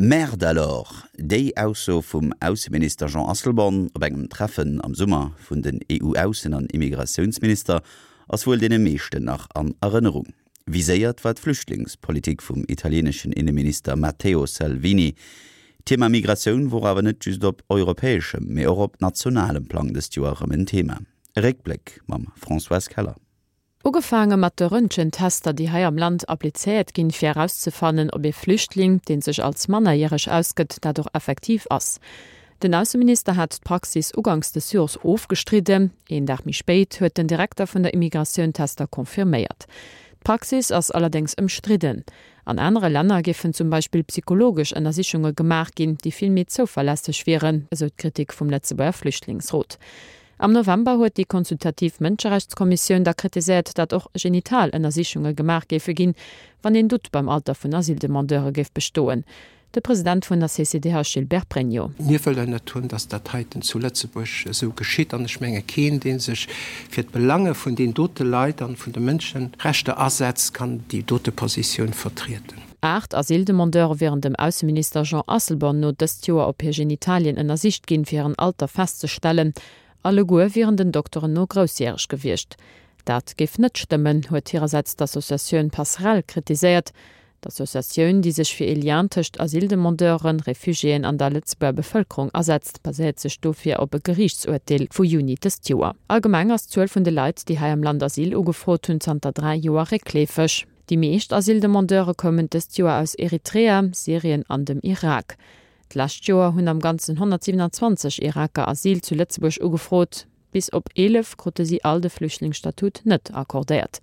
Merde alors! Déi Ausso vum Ausseminister Jean Asselborn op engem Treffen am Summer vun den EU-Aussen an Immigratiounsminister ass wuel deene meeschten nach an Erënnerung. Viséiert war d'Flüchtlingspolitik vum italieneschen Inneminister Matteo Salvini. D'Thema Migratioun wor awer net just op europäeschem, mee och op nationalem Plang dëst Joer erëm en Thema. E Réckbléck mam Françoise Keller. Ugefaange mat de Röntgentester, déi hei am Land applizéiert ginn, fir erauszefannen, ob ee Flüchtling, dee sech als mannerjäreg ausgëtt, dat och effektiv ass. Den Ausseminister hat d'Praxis uganks des Jors ofgestridden. Een Dag méi spéit huet den Direkter vun der Immigratioun d'Tester confirméiert. D'Praxis ass allerdéngs ëmstridden. An anere Länner géifen zum Beispill psychologesch Ënnersichunge gemaach ginn, déi vill méi zouverlässeg wieren, esou d'Kritik vum Lëtzebuerger Flüchtlingsrot. Am November huet déi consultativ Mënscherechtskommissioun da kritiséiert, datt och genital Ënnersichunge gemaach géife ginn, wann een Doute beim Alter vun Asyldemandeure géif bestoen. De President vun der CCDH Gilbert Pregno. Mir wëllen net hunn, datt dat heiten zu Lëtzebuerg esou geschitt. An ech menge keen, dee sech fir d'Belange vun deenen dote Leit an vun de Mënscherechter asetzt, kann déi dote Positioun vertrieden. 8 Asyldemandeure wieren dem Ausseminister Jean Asselborn no dëst Joer op hir Genitalien ënnersicht ginn, fir hiren Alter festzestellen. Alleguer wieren den Dokteren no groussjäreg gewiescht. Dat géif net stëmmen, huet hirersäits d'Associatioun Passerell kritiséiert. D'Associatioun, déi sech fir ee Lien tëscht Asyldemandeuren, Refugiéen an der Lëtzebuerger Bevëlkerung asetzt, baséiert sech dofir op e Geriichtsurteel vu Juni dëst Joer. Allgemeng ass d'Zuel vun de Leit, déi hei am Land Asyl ugefrot hunn, zanter 3 Joer réckleefeg. Déi meescht Asyldemandeure koumen dëst Joer aus Eritrea, Syrien an dem Irak. D'lescht Joer hunn am Ganzen 127 Iraker Asyl zu Lëtzebuerg ugefrot. Bis op 11 krute si all de Flüchtlingsstatut net accordéiert.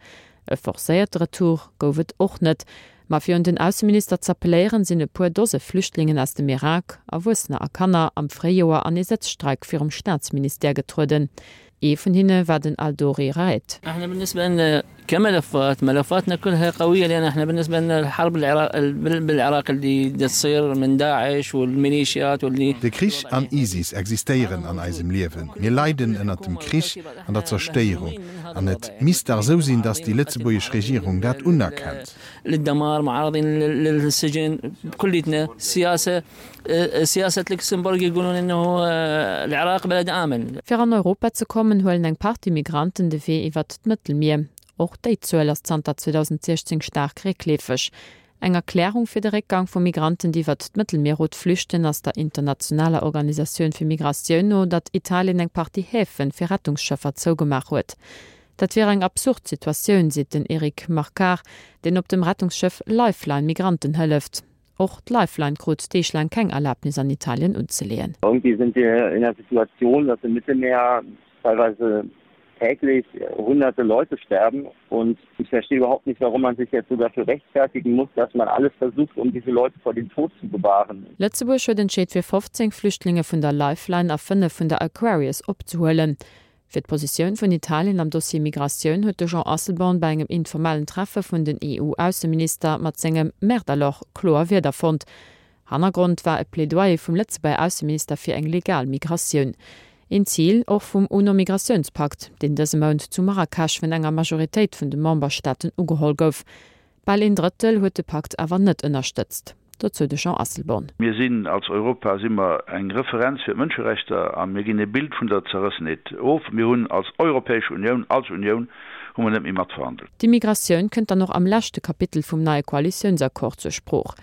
E forcéierte Retour gouf et och net. Ma fir un den Ausseminister z'appelléieren, sinn e puer Dose Flüchtlingen aus dem Irak, Erwuessener a Kanner, am Fréijoer an ee Sëtzstreik virum Staatsministère getrueden. Ee vun hinne war den Aldori Raed. De Krich an ISIS existéieren an eisem Liewen. Mir leiden ënnert dem Krich an der Zerstéierung. An et misst dach esou sinn, datt déi lëtzebuergesch Regierung dat unerkennt. Fir an Europa ze kommen, huelen eng Partie Migranten de Wee iwwert d'Mëttelmier. Och déi Zuel ass zanter 2016 staark réckleefeg. Eng Erklärung fir de Réckgang vu Migranten, déi iwwert d'Mëttelmierroute flüchten, ass der internationaler Organisatioun fir Migratioun no, datt Italien eng Partie Häfe fir Rettungsschëffer zougemaach huet. Dat wier eng absurd Situatioun, seet den Eric Marquard, deen op dem Rettungsschëff Lifeline Migranten hëlleft. Och d'Lifeline krut deeglaang keng Erlaabnis an Italien unzeleeën. Irgendwie sind wir in der Situation, dass im Mittelmeer teilweise täglich hunderte Leute sterben und ich verstehe überhaupt nicht, warum man sich jetzt so dafür rechtfertigen muss, dass man alles versucht, um diese Leute vor dem Tod zu bewahren. Lëtzebuerg huet entscheet fir 15 Flüchtlinge vun der Lifeline a 5 vun der Aquarius opzehuelen. Fir d'Positioun vun Italien am Dossier Migratioun huet de Jean Asselborn bei engem informellen Treffe vun den EU-Ausseminister mat sengem Merde alors kloer Wierder fonnt. Hannergrond war e Plädoyer vum Lëtzebuerger Ausseminister fir eng legal Migratioun. Een Zil och vum UNO-Migratiounspakt, deen dëse Mount zu Marrakesch vun enger Majoritéit vun de Memberstaaten ugeholl gouf. Bal een Drëttel huet de Pakt awer net ënnerstëtzt. Dozou de Jean Asselborn. Mir sinn, als Europa si mer eng Referenz fir d'Mënscherechter a mir ginn e Bild vun der Zerrëssenheet of. Mir hunn als Europäesch Unioun, als Unioun hu mer net méi matverhandelt. D'Immigratioun kënnt dann och am leschte Kapitel vum neie Koalitiounsaccord zur Sprooch.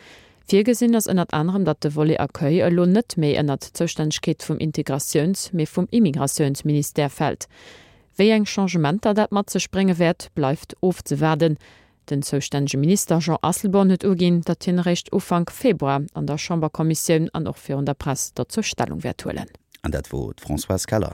Virgesinn ass ënnert anerem, datt de Volet Accueil elo net méi ënnert d'Zoustännegkeet vum Integratiouns-, mee vum Immigratiounsministère fält. Wéi eng Changementer dat mat sech brénge wäert, bleift ofzewaarden. Den zoustännege Minister Jean Asselborn huet uginn, datt hien eréischt Ufank Februar an der Chamberkommissioun an och virun der Press dozou Stellung wäert huelen. An dat wor d'Françoise Keller.